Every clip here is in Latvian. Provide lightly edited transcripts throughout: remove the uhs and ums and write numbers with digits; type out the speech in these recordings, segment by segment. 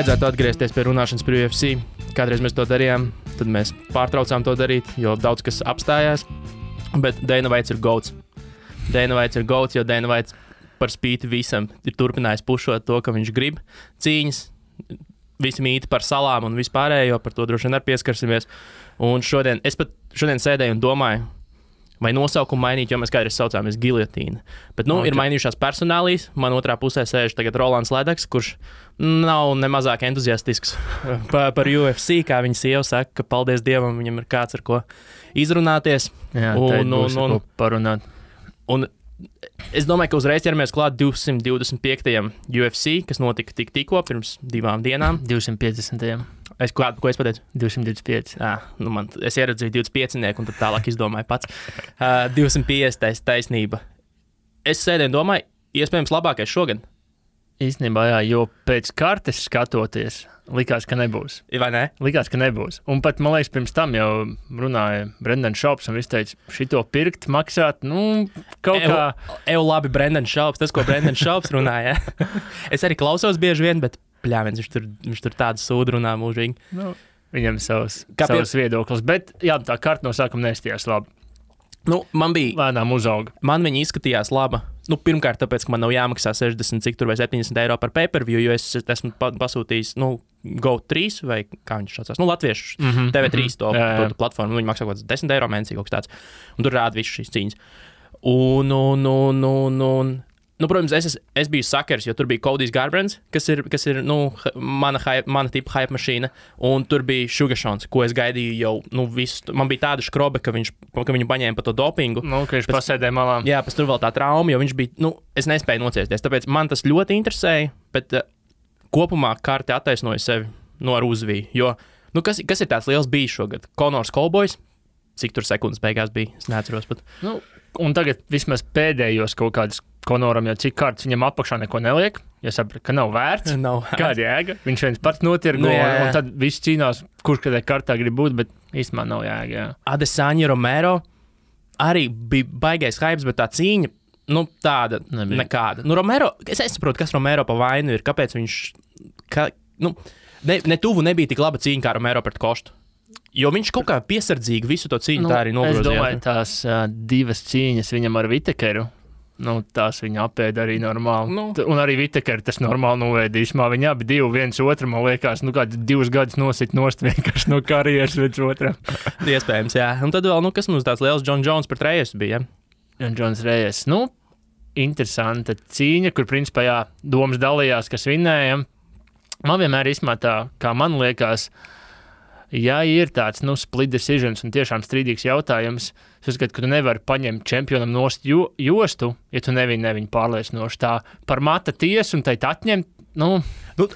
vajadzētu atgriezties pie runāšanas par UFC. Kādreiz mēs to darījām, tad mēs pārtraucām to darīt, jo daudz kas apstājās. Bet Dana White ir goats. Dana White ir goats, jo Dana White par spīti visam ir turpinājis pušot to, ka viņš grib cīņas. Visi mīti par salām un vispārējo, par to droši vien arī pieskarsimies. Un šodien sēdēju un domāju, vai nosaukumu mainīt, jo mēs kādreiz saucāmies Giljotīna. Bet, ir mainījušās personālijas. Man otrā pusē sēž tagad Rolands Ledeks, kurš nav nemazāk entuziastisks par UFC, kā viņa sieva saka, ka paldies Dievam, viņam ir kāds ar ko izrunāties. Jā, un parunāt. Un es domāju, ka uzreiz ķeramies klāt 225. UFC, kas notika tikko pirms 2 dienām. 250. Ko es pateicu? 225. Es ieraudzīju 25, un tad tālāk izdomāju pats. 250. taisnība. Es sēdēju un domāju, iespējams labākais šogad. Īstenībā, jā, jo pēc kartes skatoties, likās, ka nebūs. Vai ne? Likās, ka nebūs. Un pat, man liekas, pirms tam jau runāja Brendan Schaubs, un viņš teica, šito pirkt, maksāt, kaut kā... Labi, Brendan Schaubs, tas, ko Brendan Schaubs runāja. Es arī klausos bieži vien, bet pļāviens, viņš tur tādu sūdu runā mūžīgi. Viņam savs viedoklis, bet jā, tā karta no sākuma neizstījās labi. Man bija... Lēnām uzauga. Man viņa izskatījās laba. Pirmkārt, tāpēc, ka man nav jāmaksā 60 cik tur vai 70 eiro par pay-per-view, jo es esmu pasūtījis, Go3 vai kā viņš saucās, latviešu TV3 to platformu. Viņi maksā kaut kāds 10 eiro mēnesī kaut kas tāds. Un tur rāda visu šīs cīņas. Protams, es biju sakers, jo tur bija Cody Garbrands, kas ir mana tipa hype mašīna, un tur bija Sugar Sean, ko es gaidīju jau, visu. Man bija tāda škrobe, ka viņu paņēma pa to dopingu. Ka viņš pasēdēja malā. Jā, pēc tur vēl tā trauma, jo viņš bija, es nespēju nociesties, tāpēc man tas ļoti interesēja, bet kopumā karte attaisnoja sevi ar uzviju, jo, kas ir tāds liels bijis šogad? Conors Cowboys, cik tur sekundes beigās bija, es neatceros pat. Un tagad vismaz pēdējos kaut kādus Conoram, jo cik kārtas viņam apakšā neko neliek, jo sapratu, ka nav vērts. Kāda jēga? Viņš viens pats notirgo, un tad viss cīnās, kurš kādai kartā grib būt, bet īstenībā nav jēga. Jā. Adesanya Romero arī bija baigais hypes, bet tā cīņa, tāda nekāda. Romero, es saprotu, kas Romero pa vainu ir, kāpēc viņš, ne tuvu nebija tik laba cīņa kā Romero pret Kostu. Jo viņš kaut kā piesardzīgi visu to cīņu tā arī nogrozīja. Es domāju, tās 2 cīņas viņam ar Vitekeru, tās viņa apēda arī normāli. Un arī Vitekeru tas normāli novēdīšmā. Viņi abi 2 viens otru, man liekas, kāds 2 gadus nosit nost vienkārši no karjeras viens otram. Iespējams, jā. Un tad vēl, kas mums tāds liels John Jones pret Reyesu bija, ja? John Jones Reyes. Interesanta cīņa, kur principā, jā, domas dalījās, kas vinnēja. Man vienmēr tā, kā man liekas, ja ir tāds, split decisions un tiešām strīdīgs jautājums, es uzskatu, ka tu nevari paņemt čempionam nost jostu, ja tu neviņu pārliecinoši tā par mata tiesu un teikt atņemt,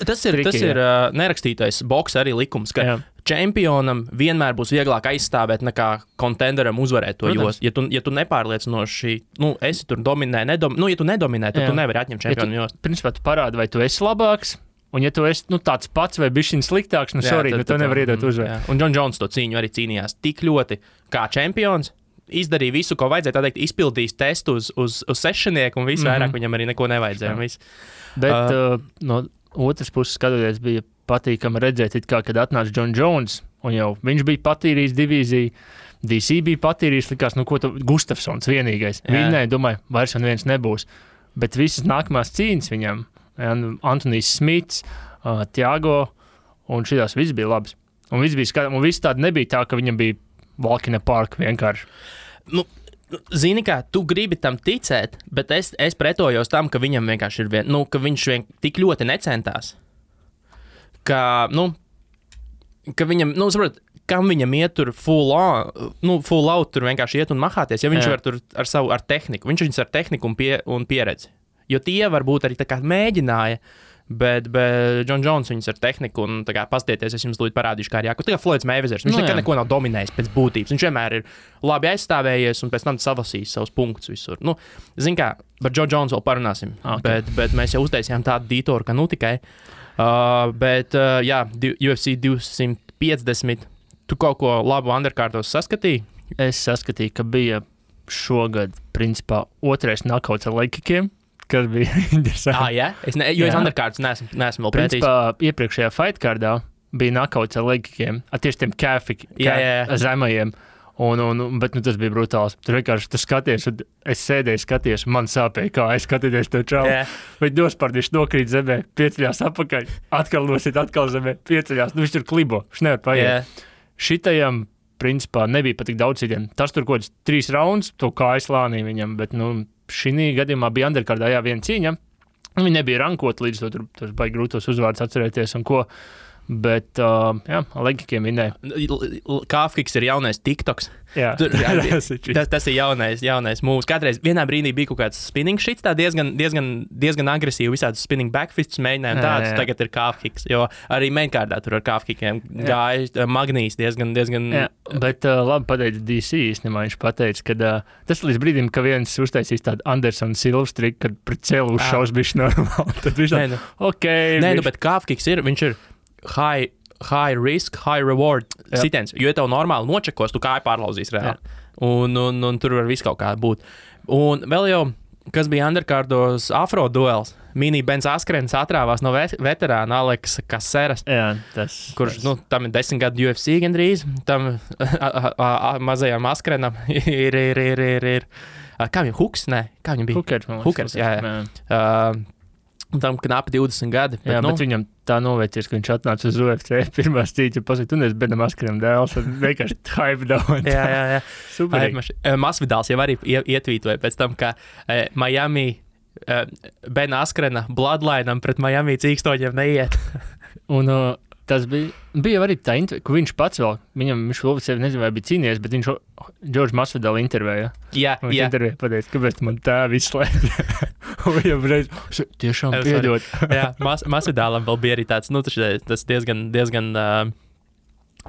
tas ir nerakstītais boksa arī likums, ka čempionam vienmēr būs vieglāk aizstāvēt nekā kontenderam uzvarēt to jostu. Ja tu nepārliecinoši, esi tur dominē, ja tu nedominē, tad tu nevari atņemt čempionu jostu. Principā tu parādi, vai tu esi labāks, un ja tu esi tāds pats vai bišķiņ sliktāks, tu nevari iedot uzvaru. Un John Jones to cīņu arī cīnījās tik ļoti kā čempions, izdarīja visu, ko vajadzēja, tā teikt, izpildījis testu uz sešnieku, un visu vairāk viņam arī neko nevajadzēja. Bet no otras puses skatoties, bija patīkami redzēt, kad atnāca John Jones, un jau viņš bija patīrījis divīziju, DC bija patīrījis, likās, Gustafsons vienīgais. Viņai, domāju, vairs un viens nebūs. Bet visas nākamās cīņas viņam, Antonijs Smits, Thiago, un šitās viss bija labs. Un viss tāda nebija tā, ka viņam bija walk in a park vienkārši. Zini kā, tu gribi tam ticēt, bet es pretojos tam, ka viņam vienkārši ir ka viņš tik ļoti necentās. Ka viņam, saprot, kam viņam iet tur full out tur vienkārši iet un mahāties, ja viņš var tur ar tehniku. Viņš viņus ar tehniku un pieredzi. Jo tie varbūt arī tā kā mēģināja, bet John Jones viņus ar tehniku un tā kā pastieties, es jums lūdzu parādīšu, kā ir jāko. Tā kā Floyds Mayweathers, viņš nekad neko nav dominējis pēc būtības. Viņš vienmēr ir labi aizstāvējies un pēc tam savasījis savus punktus visur. Zin kā, par John Jones vēl parunāsim, bet mēs jau uztaisījām tādu dītoru, ka tikai. UFC 250, tu kaut ko labu underkārtos saskatīji? Es saskatīju, ka bija šogad, principā, otrais nakauts ar lekikiem. kas bija interesanti. Jā? Es underkārds neesmu vēl pētījis. Principā, iepriekšējā fightkārdā bija knockouts ar legkiem, tieši tiem zemajiem. Bet tas bija brutāls. Tur vienkārši tu skaties, un es sēdēju, skaties, un man sāpēja, kā es skatīties to čalu. Bet dospārdīši nokrīt zemē, pieceļās apakaļ, atkal nosit, atkal zemē, pieceļās. Viņš tur klibo, viņš nevar paiet. Šitajam, principā, nebija pat tik daudz citiem. Tas tur kaut kāds 3 raunds, to kājas lānī viņam, bet, šī gadījumā bija underkārdā, viena cīņa. Viņi nebija rankot līdz to, tur baigi grūtos uzvārdus atcerēties un ko. Bet, legikiem minēja. Kāfkiks ir jaunais TikToks. Jā, tas ir jaunais mūvs. Kādreiz vienā brīdī bija kaut kāds spinning shits, tā diezgan agresīvi visādus spinning backfists mēģinājumu tādus, tagad ir kāfkiks, jo arī mainkārdā tur ar kāfkikiem gāja Magnīs diezgan. Jā, bet labi pateica DC īstenībā, viņš pateica, ka tas līdz brīdim, ka viens uztaisīs tādu Anderson Silvs triku, kad pret celu uzšaus bišķi normāli, tad viņš bet kāfkiks viņš ir high risk, high reward sitiens, jo tev normāli nočekos, tu kāju pārlauzīs reāli. Un tur var viss kaut kā būt. Un vēl jau, kas bija underkārdos afro duels, Mini Benz Askrens atrāvās no veterāna Aleksa Kaseras, kurš, tam ir 10 gadu UFC gandrīz, tam mazajam Askrenam ir kā viņam, Huks? Nē, kā viņam bija? Hukers, jā. Tam knapi 20 gadi. Bet viņam tā novērties, ka viņš atnāca uz UFC pirmās cīņas, pasaka, tu neesi Benam Askrenam dēls, un vienkārši hype down. Jā. Superīgi. Masvidāls jau arī ietvītoja pēc tam, ka Miami Bena Askrena bloodlineam pret Miami cīkstoņiem neiet. Un tas bija arī tā, ka viņš pats vēl, viņš oficiāli nezinu, vai bija cīnījies, bet viņš Džordžu Masvidālu intervēja. Jā. Intervēja pateica, kāpēc man tā izslēdz. Un viņam reiz, tiešām piedod. Jā, Masvidālam vēl bija arī tāds, tas diezgan,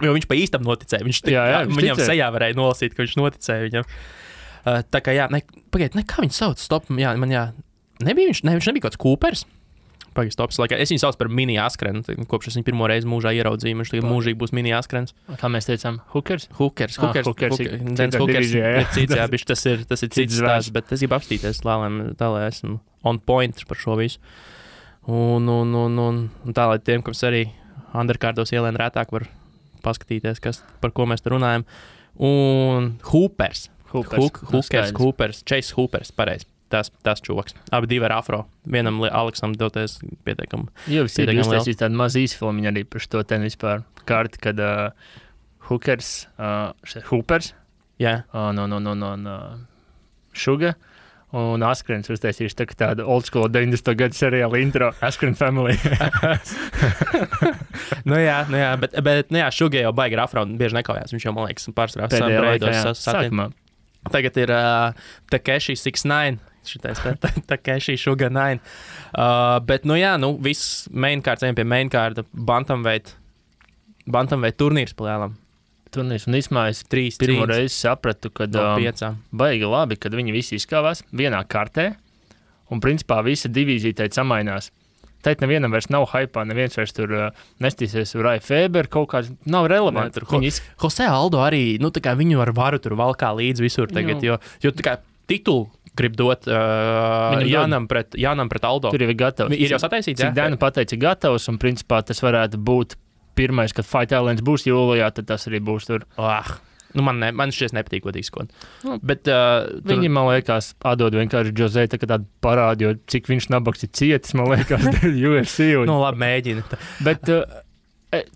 jo viņš pa īstam noticēja. Viņam sejā varēja nolasīt, ka viņš noticēja viņam. Tā kā pagaid, kā viņš sauc? Stop, viņš nebija kāds Coopers. Pagaid, stops. Es viņu sauc par Mini Askrenu, kopš es viņu pirmo reizi mūžā ieraudzīju. Viņš tagad mūžīgi būs Mini Askrens. Kā mēs teicām, Hukers? Hukers. Dens Hukers ir cits, tas ir cits stāsts, bet es gribu apstīties, tā lai esmu on point par šo visu. Un tā, lai tiem, kas arī underkārdos ielēn rētāk var paskatīties, par ko mēs te runājam. Un Hoopers, Chase Hoopers, pareizi. Tas čoks. Abi divi ar afro. Vienam Aleksam doties pietiekami. Jā, visi ir uztaisījis tādu mazu īsfilmu arī par šo ten vispār kārti, kad Hoopers, Suga un Askrens uztaisījuši tādu old school 90. gadu seriālu intro Askren Family. jā, bet Suga jau baigi ar afro un bieži nekaujās. Viņš jau, man liekas, pārsvarā breidos sākumā. Tagad ir Takeshi 69. Šitais Takeshi Suga 9. Bet, viss mainkārds, ejam pie mainkārda, bantamweight turnīrs palēlam. Turnīrs, un īsmā es pirmo reizi sapratu, kad baigi labi, kad viņi visi izkāvās vienā kartē, un principā visa divīzija teikt samainās. Teikt, nevienam vairs nav hypā, neviens vairs tur nestīsies Rai Feber, kaut kāds nav relevanti. Jose Aldo arī, tā kā viņu ar varu tur valkā līdz visur tagad, jo tā kā titulu grib dot Jānam pret Aldo. Tur jau ir gatavs. Ir jau sataisīts, Cik Dana pateica gatavs, un principā tas varētu būt pirmais, kad Fight Islands būs jūlijā, tad tas arī būs tur. Man šķiet nepatīk, ko izskot. Bet viņi, man liekas, atdod vienkārši Jose tādu parādu, jo cik viņš nabaks ir cietis, man liekas, UFC. Labi, mēģina. Bet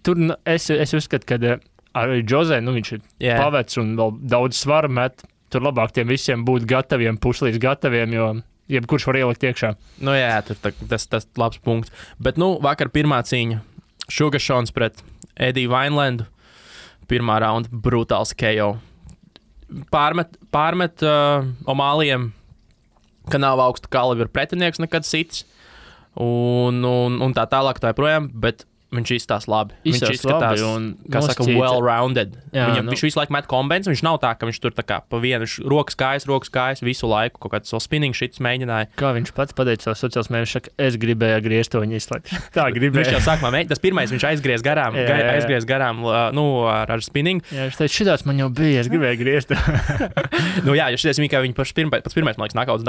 tur es uzskatu, ka arī Jose, viņš ir pavecs un vēl daudz svaru met. Tur labāk tiem visiem būt gataviem, puslīdz gataviem, jo jebkurš var ielikt iekšā. Tas labs punkts. Bet, vakar pirmā cīņa. Sugar Seans pret Eddie Vinelandu. Pirmā raunda brutāls KO. Pārmet Omālijam, ka nav augstu kalibru pretinieks nekad sits. Un tā tālāk tā projām, bet Viņš izskatās labi. Izskatās Viņš izskatās, labi, kā saka, well-rounded. Jā, Viņš visu laiku met kombinācijas, viņš nav tā, ka viņš tur tā kā pa vienu rokas kājas visu laiku kaut kāds spinning shits mēģināja. Kā viņš pats pateica savos sociālos mēdījos, saka, es gribēju griezt to viņa izslēgt. Tā gribēju. Viņš jau sākumā mēģināja, tas pirmais viņš aizgriez garām, ar spinning. Jā, viņš teica, šitās man jau bija, es gribēju griezt. Jā, jo šities viņa, kā viņa pats pirmais, man liekas, knockouts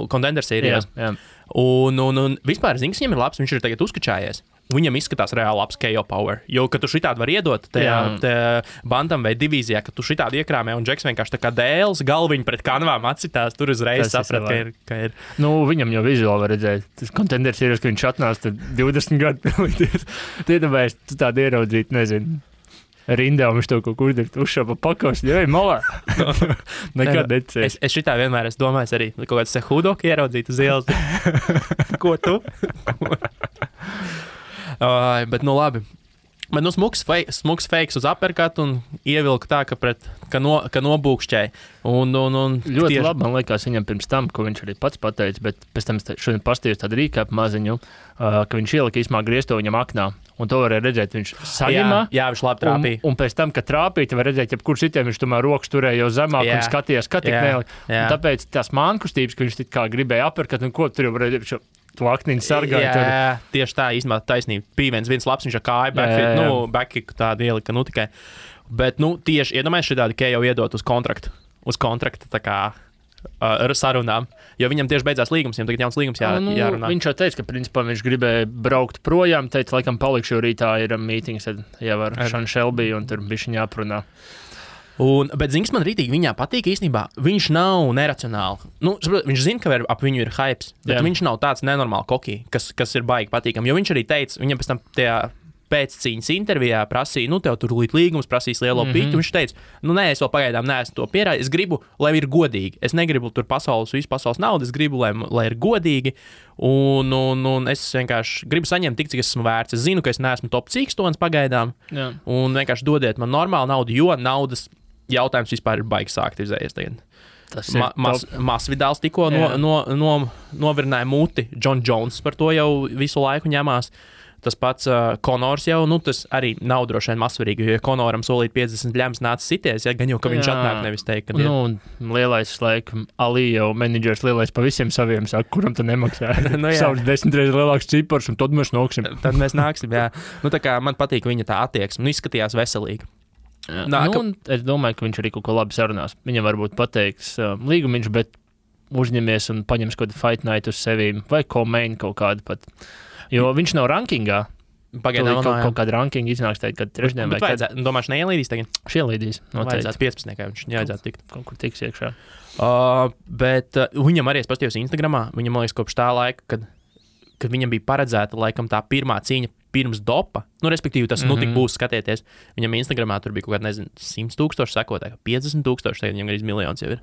contender sērijās. Jā. Un vispār Zings viņam ir labs, viņš ir tagad uzkačājies. Viņam izskatās reāli labs KO power. Jo, kad tu šitādi var iedot tajā bantam vai divīzijā, ka tu šitādi iekrāmē un Džeks vienkārši tā kā dēls galviņu pret kanvām atsitās, tur uzreiz saprat, ka ir. Nu, viņam jau vizuāli var redzēt. Tas kontenders ir, ka viņš atnāca 20 gadu pilīties. Tiedabēs, tu tādu ieraudzīt, nezinu. Rindā viņš to kaut kur uzšāpa pakos, jau malā. Nekad necēs. Es šitā vienmēr esmu domājis arī, kaut kāds Sehudoku ieraudzīt uz ielas. Ko tu? Bet nu labi. Bet nu smuks fakes uz uppercut un ievilka tā, ka nobūkšķēja. Ļoti labi, man liekas, viņam pirms tam, ko viņš arī pats pateica, bet pēc tam šodien pastījos tādu rīkāpu maziņu, ka viņš ielika īsmā griezto viņam aknā. Un to varēja redzēt, viņš saņemā. Jā, viņš labi trāpīja. Un pēc tam, kad trāpīja, var redzēt, jebkur citiem viņš tomēr rokas turēja jau zemāk un skatījās, ka tik nelika. Tāpēc tās mānkustības, ka viņš tik kā gribēja uppercut, un ko tur jau varēja to akniņu sargāja. Jā, tieši tā, īstenībā taisnība. Bija viens labs, viņš ar kāju backkick tādu ielika, tikai. Bet, tieši iedomājies šitādi, ka jau iedot uz kontrakta tā kā ar sarunām, jo viņam tieši beidzās līgums, viņam tagad jauns līgums jārunā. Viņš jau teica, ka principā viņš gribēja braukt projām, teica, laikam palikšu, jo rītā ir mītings jau ar Šanu Šelbiju, un tur bišķiņ jāprunā. Bet Zings man rītīgi viņā patīk īstenībā. Viņš nav neracionāli. Viņš zina, ka ap viņu ir hypes, bet viņš nav tāds nenormāli kokī, kas ir baigi patīkam. Jo viņš arī teica, viņam pēc tam tajā pēccīņas intervijā prasīja, tev tur līgums prasīs lielo pīķu. Viņš teica, nē, es vēl pagaidām neesmu to pierādījis. Es gribu, lai ir godīgi. Es negribu tur visu pasaules naudu, es gribu, lai ir godīgi. Un es vienkārši gribu saņemt tik, cik esmu vērts. Es zinu, ka es neesmu top cīkstons pagaidām. Jā. Un vienkārši dodiet man normālu naudu, jo naudas jautājums vispār ir baigi sākt izējies tagad. Masvidāls tikko novirināja muti. John Jones par to jau visu laiku ņemās. Tas pats Konors jau, tas arī nav droši vien mazsvarīgi, jo Konoram solīt 50 ļems nāca sities, gan jau, ka viņš atnāk nevis teikt, ka lielais laikam, Ali jau menedžers lielais pa visiem saviem saka, kuram tu nemaksā. Savs 10 reizes lielāks cipars, un tad mēs nāksim. Jā. Tā kā man patīk viņa tā attieksme, izskatījās veselīgi. Es domāju, ka viņš arī kaut ko labi sarunās. Viņam varbūt pateiks līgumiņš, bet uzņemies un paņems kaut kādu fight night uz sevīm, vai co-main kaut kādu pat. Jo viņš nav rankingā. Pagaidām kaut kāda rankinga iznāks teikt, kad trešdien vai kad. Domāšu, neielīdīs tagad? Ielīdīs. Vajadzētu 15, kā viņš jāiedzētu tikt. Kaut kur tiks iekšā. Bet viņam arī es pastījos Instagramā. Viņam, man liekas, kopš tā laika, kad viņam bija paredzēta laikam tā pirmā cīņa pirms dopa, respektīvi tas tik būs skatieties. Viņam Instagramā tur bija kaut kāda, 100,000 sekotāji, 50,000, tagad viņam arī miljons jau ir.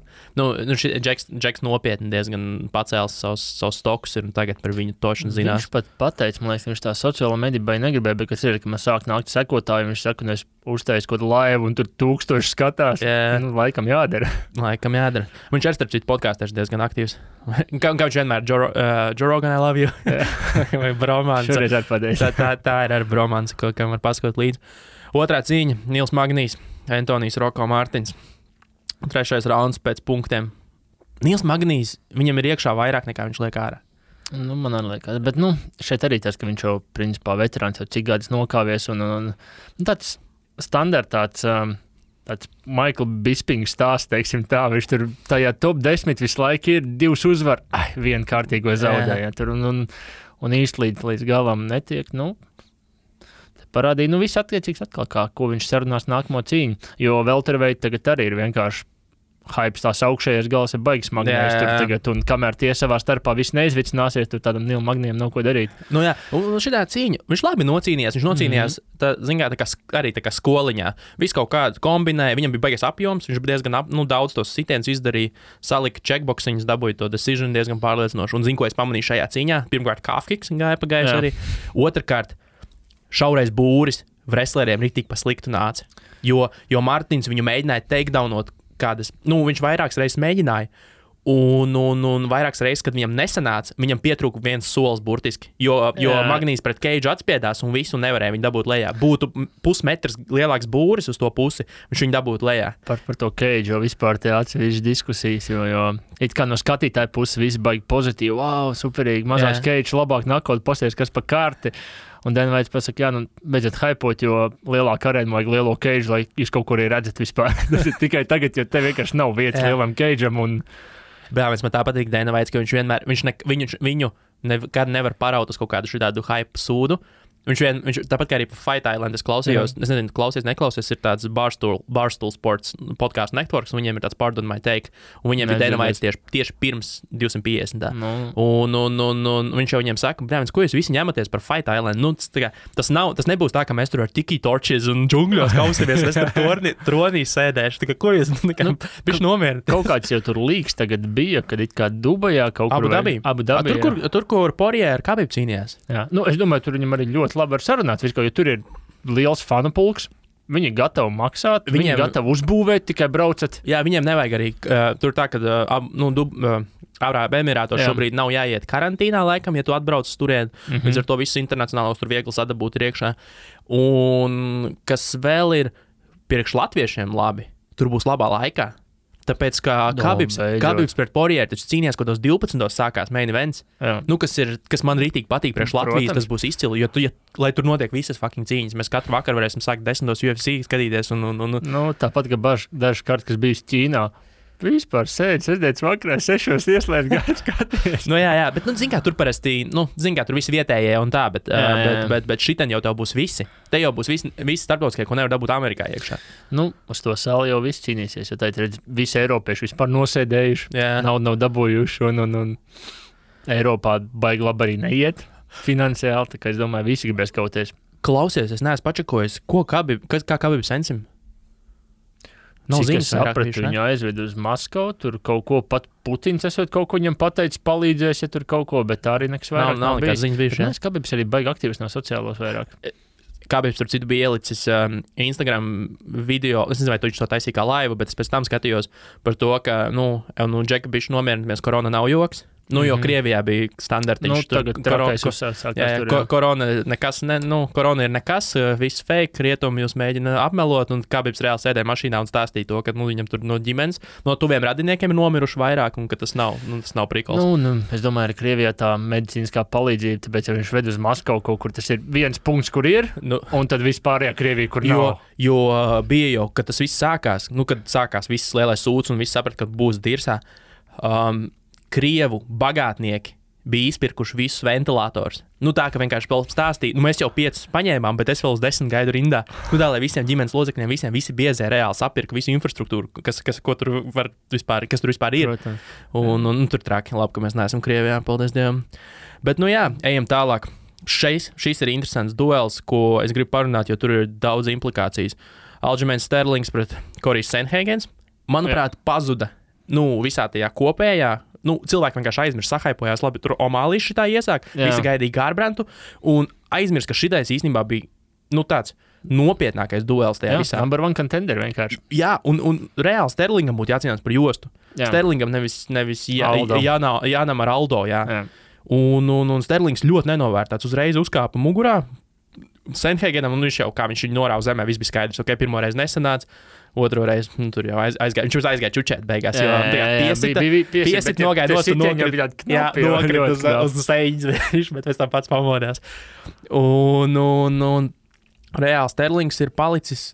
Džeks nopietni diezgan pacēlis savus stokus ir un tagad par viņu tošanu zinās. Viņš pat pateica, man liekas, viņš tā sociālo mediju vai negribēja, bet kas ir, ka man sāk nākt sekotāji, viņš saka, un es uztaisu kaut laivu un tur 1000 skatās. Laikam jādara. Viņš ar starp citu podkāstēs diezgan aktīvs. Kā viņš vienmēr, Joe Rogan, I love you. Vai Bromans. Šoreiz atpadēs. Tā ir ar Bromans, kam var paskot līdzi. Otrā cīņa - Nils Magnijs, Antonijs Roko Mārtiņš. Trešais rauns pēc punktiem. Nils Magnijs, viņam ir iekšā vairāk nekā viņš liek ārā. Man arī liekas, bet šeit arī tas, ka viņš jau principā veterāns jau cik gadus nokāvies un tāds standartāts tāds Michael Bisping stāsts, teiksim tā, viņš tur tajā top 10 visu laiku ir 2 uzvar, vienu kārtīgo zaudēja tur un īsti līdz galam netiek, parādīja, viss attiecīgs atkal, ko viņš sarunās nākamo cīņu, jo welterweight tagad arī ir vienkārši hypes, tās augšējais gals ir baigs Magnijs tur tagad, un kamēr tie savā starpā viss neizvicināsies, tur tādam Nilu Magnijam nav ko darīt. Un šitā cīņa, viņš labi nocīnījās, arī tā kā skoliņā, visu kaut kādu kombinēja, viņam bija baigas apjoms, viņš bija diezgan daudz tos sitienus izdarīja, salika checkboxiņus, dabūja to decision diezgan pārliecinoši, un zinu, ko es pamanīju šajā cīņā, pirmkārt calf kicks gāja pagājuši arī, otrkārt šaurais būris wrestleriem ritīgi pa sliktu nāca, jo Martins viņu mēģināja takedownot kādas, viņš vairākas reizes mēģināja, Un vairākas reizes, kad viņam nesanāca, viņam pietrūka viens solis burtiski, jo Magnīs pret Keidžu atspiedās un visu nevarēja viņu dabūt lejā. Būtu pusmetrs lielāks būris uz to pusi, viņš viņu dabūtu lejā. Par to Keidžu jau vispār te atsevišķi diskusijas, jo it kā no skatītāja puses viss baigi pozitīvi, wow, superīgi, mazās Keidžu labāk nakot, pasties, kas pa kārti. Un Dana White pasaka, beidziet hypot, jo lielāka arēna vajag lielo Keidžu, lai jūs kaut kur redzat vispār. Tas ir tikai tagad, jo te vienkārši nav vietas lielam Keidžam un... Brāvis, man tā patīk Dana White, ka viņš vienmēr, viņu nekad nevar paraut uz kaut kādu šādu hype sūdu. Viņš tāpat kā arī par Fight Island es klausījos, es nezinu, neklausies, ir tāds Barstool Sports podcastu networks, un viņiem ir tāds Pardon My Take, un viņiem ir Dana White tieši pirms 250. Un viņš jau viņiem saka, brāvis, ko jūs visi ņematies par Fight Island? Nu, tas nebūs tā, ka mēs tur ar tiki torches un džungļos kausimies, es tur tronī sēdēšu, tā kā ko jūs, viņš nomierina. Kaut kāds jau tur līgs tagad bija, kad it kā Dubajā kaut kur... Abu Dabī. Tur, kur Poirier ar Khabib cīnījās. Jā, es domāju, tur viņam arī ļoti labi var sarunāt, jo tur ir liels fanu pulks. Viņi gatavi maksāt, viņi gatavi uzbūvēt, tikai braucat. Jā, viņiem nevajag arī tur tā, ka Arābu Emirātos šobrīd nav jāiet karantīnā laikam, ja tu atbrauc turien. Līdz ar to visus internacionālos tur viegli sadabūt iekšā. Un kas vēl ir priekš latviešiem labi, tur būs labā laikā. Tāpēc, ka Khabibs pret Poirier taču cīnījās, kad 12. sākās main events. Kas man rītīgi patīk priekš Latvijas, tas būs izcili, jo lai tur notiek visas fucking cīņas. Mēs katru vakaru varēsim sākt 10. UFC skatīties. Nu, tāpat, ka dažs kārt, kas bijis Ķīnā, vispār sēdz, sēdēts vakarā 6 ieslēdz gāju skaties. Jā, bet, zin kā, tur parasti, tur visi vietējie un tā, bet šitien jau tev būs visi. Te jau būs visi starptautiskie, ko nevar dabūt Amerikā iekšā. Uz to sali jau viss cīnīsies, jo tā ir redz, visi eiropieši vispār nosēdējuši, naudu nav dabūjuši un Eiropā baigi labi arī neiet finansiāli, tā kā es domāju, visi gribēs kauties. Klausies, es neesmu pačakojis, kā Khabib sensim? Cik es sapratu, viņu aizved uz Maskavu, tur kaut ko pat Putins esot kaut ko viņam pateicis, palīdzēs, ja tur kaut ko, bet tā arī nekas vairāk nav nekāds ziņas bijuši. Bet Khabibs arī baigi aktīvs no sociālos vairāk. Khabibs, tur citu bija ielicis Instagram video, es nezinu, vai tu viņš to taisīja kā laivu, bet es pēc tam skatījos par to, ka, Džeka bišķi nomierinamies, korona nav joks. Jo Krievijā bija standartiņš. Tagad trakais uzsākās tur. Korona ir nekas, viss fake, rietumi jūs mēģina apmelot, un Khabibs reāli sēdēja mašīnā un stāstīja to, ka viņam tur no ģimenes, no tuviem radiniekiem ir nomiruši vairāk, un ka tas nav prikols. Es domāju, ka Krievijā tā medicīniskā palīdzība, tāpēc, ja viņš ved uz Maskavu kaut kur, tas ir viens punkts, kur ir, un tad vispārējā Krievija, kur nav. Jo bija jau, kad tas viss sākās, kad sākās viss lielais sūds, un viss saprat, ka būs dirsā. Krievu bagātnieki bija izpirkuši visus ventilatorus. Tā, ka vienkārši stāstīja, mēs jau 5 paņēmām, bet es vēl uz 10 gaidu rindā. Tā, lai visiem ģimenes locekļiem, visi biezē reāli sapirka visu infrastruktūru, kas tur vispār ir. Un tur traki, labi, ka mēs neesam Krievijā, paldies Dievam. Bet, ejam tālāk. Šis ir interesants duels, ko es gribu parunāt, jo tur ir daudz implikācijas. Aljamains Sterlings pret Corijas Sandhagens, manuprāt, pazuda visā tajā kopējā. Cilvēki vienkārši aizmirst, sahaipojās, labi, tur Omālīs šitā iesāk, visi gaidīja Garbrantu, un aizmirst, ka šitais īstenībā bija, tāds nopietnākais duels tajā visā. Number one contender vienkārši. Jā, un reāli Sterlingam būtu jācīnās par jostu. Sterlingam nevis Jānam ar Aldo, jā. Un Sterlings ļoti nenovērtāts, uzreiz uzkāpa mugurā, Sandhagenam, un viņš jau, kā viņš viņu norāva zemē, viss bija skaidrs, pirmo reizi nesanāca. Otro reizi, tur jau aizgāja. Viņš aizgāja čučēt beigās, jo piesita nogaida nost un nokrita uz sēņas, bet pēc tam pats pamodās. Un reāli Sterlings ir palicis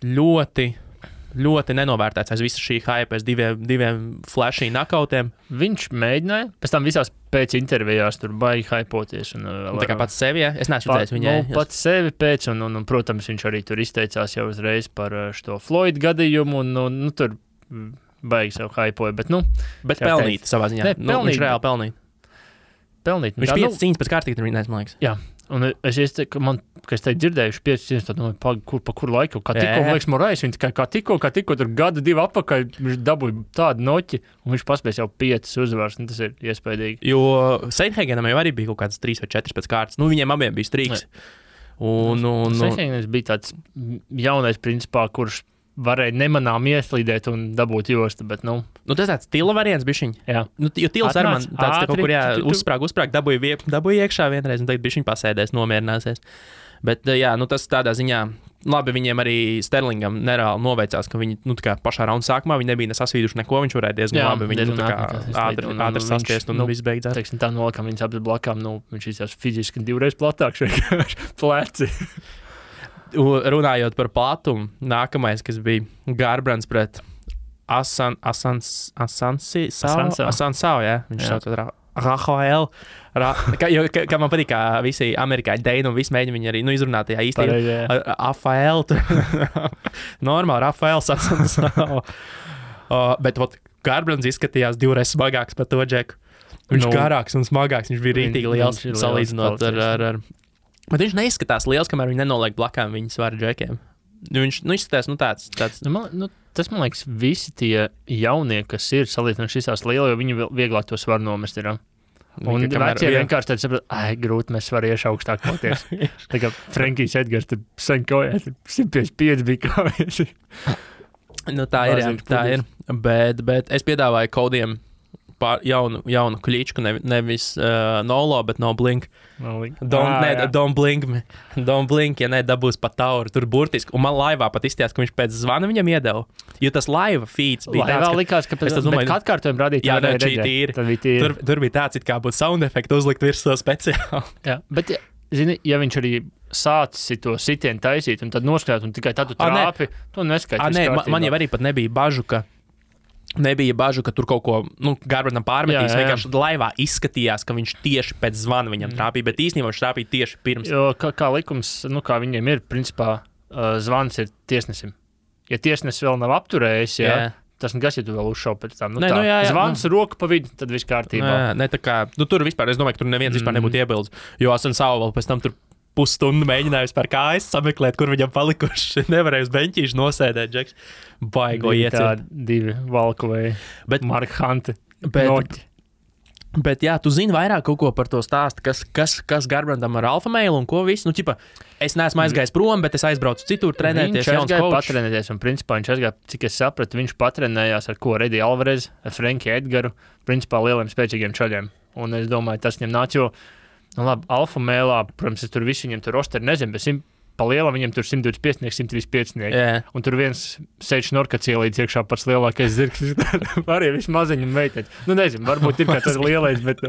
ļoti nenovērtēts aiz visa šī hype, aiz diviem flashy knockoutiem. Viņš mēģināja, pēc tam visās pēc intervijās tur baigi hypoties. Tā kā pats sevi, es neesmu redzējis viņai. Pats sevi pēc, un, protams, viņš arī tur izteicās jau uzreiz par šo Floyd gadījumu, un tur baigi sev hypoja, bet pelnīt savā ziņā. Viņš reāli pelnīt. Viņš 5 cīņas pēc kārtīgi tur viņais, man liekas. Jā. Un es teicu, ka es teicu dzirdējuši 5 cīņas, tad pa kur laiku, kā tikko, man liekas, Morais, viņš kā tikko tur gadu 2 apakaļ, viņš dabūja tādu noķi, un viņš paspēs jau 5 uzvaras, un tas ir iespējīgi. Jo Sandhagenam jau arī bija kaut kāds 3 vai 4 pēc kārtas, viņiem abiem bija strīks. Sandhagens bija tāds jaunais principā, kurš varēja nemanām ieslīdēt un dabūt jostu, bet, nu... Nu, tas tāds Tila variants bišķiņ. Jā. Nu, jo Tils arī man tāds ātri, kaut kur, uzsprāg, dabūja iekšā vienreiz, un tagad bišķiņ pasēdēs, nomierināsies. Bet, jā, nu, tas tādā ziņā, labi, viņiem arī Sterlingam nereāli noveicās, ka viņi, nu, tā kā pašā raunda sākumā, viņi nebija nesasvīduši neko, viņš varēja diezgan labi, viņi, nu, tā kā ātri saskiest un viss beidzās. Teiksim, tā nolakam viņas abas blakām, nu, viņš izjās fiziski 2 reizes platāks, vienkārši pleci. Runājot par platumu, nākamais, kas bija Garbrands pret Asansao, jā, viņš sauc Rafael. Kā man patīk, kā visi amerikāņi deini un visi mēģina viņu arī izrunāt tajā īstenībā. Rafael. Normāli, Rafael Asansao. Bet Garbrands izskatījās 2 reizes smagāks par to džeku. Viņš garāks un smagāks, viņš bija rītīgi liels salīdzinot ar... Bet viņš neizskatās liels, kamēr viņi nenoliek blakām viņa svaru džekiem. Viņš izskatās, tāds... Tas, man liekas, visi tie jaunie, kas ir salīdzinot šīs lielo, jo viņi vieglāk to svaru nomest ir. Un vecie vienkārši tad saprot, grūti mēs varam iešu augstāk koties. Tā kā Frankijs Edgars tur sen kojās, 155 bija kāvies. Nu, tā ir. Bet es piedāvāju Kodiem jaunu kličku, nevis Nolo, bet no Blink. Don't blink me. Don't blink, ja nedabūs pa tauru. Tur burtiski. Un man laivā pat izstījās, ka viņš pēc zvana viņam iedeva. Jo tas laiva feeds bija tāds, ka... likās, ka pēc atkārtojuma radīt. Jā, tur bija tāds, it kā būtu sound efektu uzlikt virsū speciāli. Jā, bet, zini, ja viņš arī sācis to sitienu taisīt un tad noskatāt un tikai tad tu trāpi, to neskaidrs. Man jau arī pat nebija bažu, ka tur kaut ko Garbrandam pārmetīs. Vienkārši laivā izskatījās, ka viņš tieši pēc zvana viņam trāpīja, bet īstenībā viņš trāpīja tieši pirms. Jo kā likums, kā viņiem ir, principā zvans ir tiesnesim. Ja tiesnesis vēl nav apturējis, tas nekas, ja tu vēl uzšauj pēc tam. Zvans roku pa vidu, tad viss kārtībā. Tā kā, tur vispār, es domāju, ka tur neviens vispār nebūtu iebildes, jo Asansao vēl pēc tam tur pusstundu mēģināju par kājas sameklēt, kur viņam palikuši. Nevarēju uz beņķīšu nosēdēt, Džeks. Baigo ieciet. 2 valkuvēji. Mark Hunte. Bet jā, tu zini vairāk kaut ko par to stāstu, kas Garbrandam ar alfa mailu un ko visu. Nu, ķipa, es neesmu aizgājis prom, bet es aizbraucu citur trenēties. Viņš aizgāja patrenēties, un principā viņš aizgāja, cik es sapratu, viņš patrenējās ar ko Reddy Alvarez, ar Frankiju Edgaru, principā lieliem spēcīgiem čaļiem. Un es domāju, tas viņam nāc, jo labi, alfa mēlā, protams, es tur visu viņam tur rosteri nezinu, bet pa lielam viņam tur 125, 135. Un tur viens sēž šnorkats ielīdz iekšā pats lielākais zirgs. Arī viss maziņi un meiteņi. Nu, nezinu, varbūt ir kā tas lielais, bet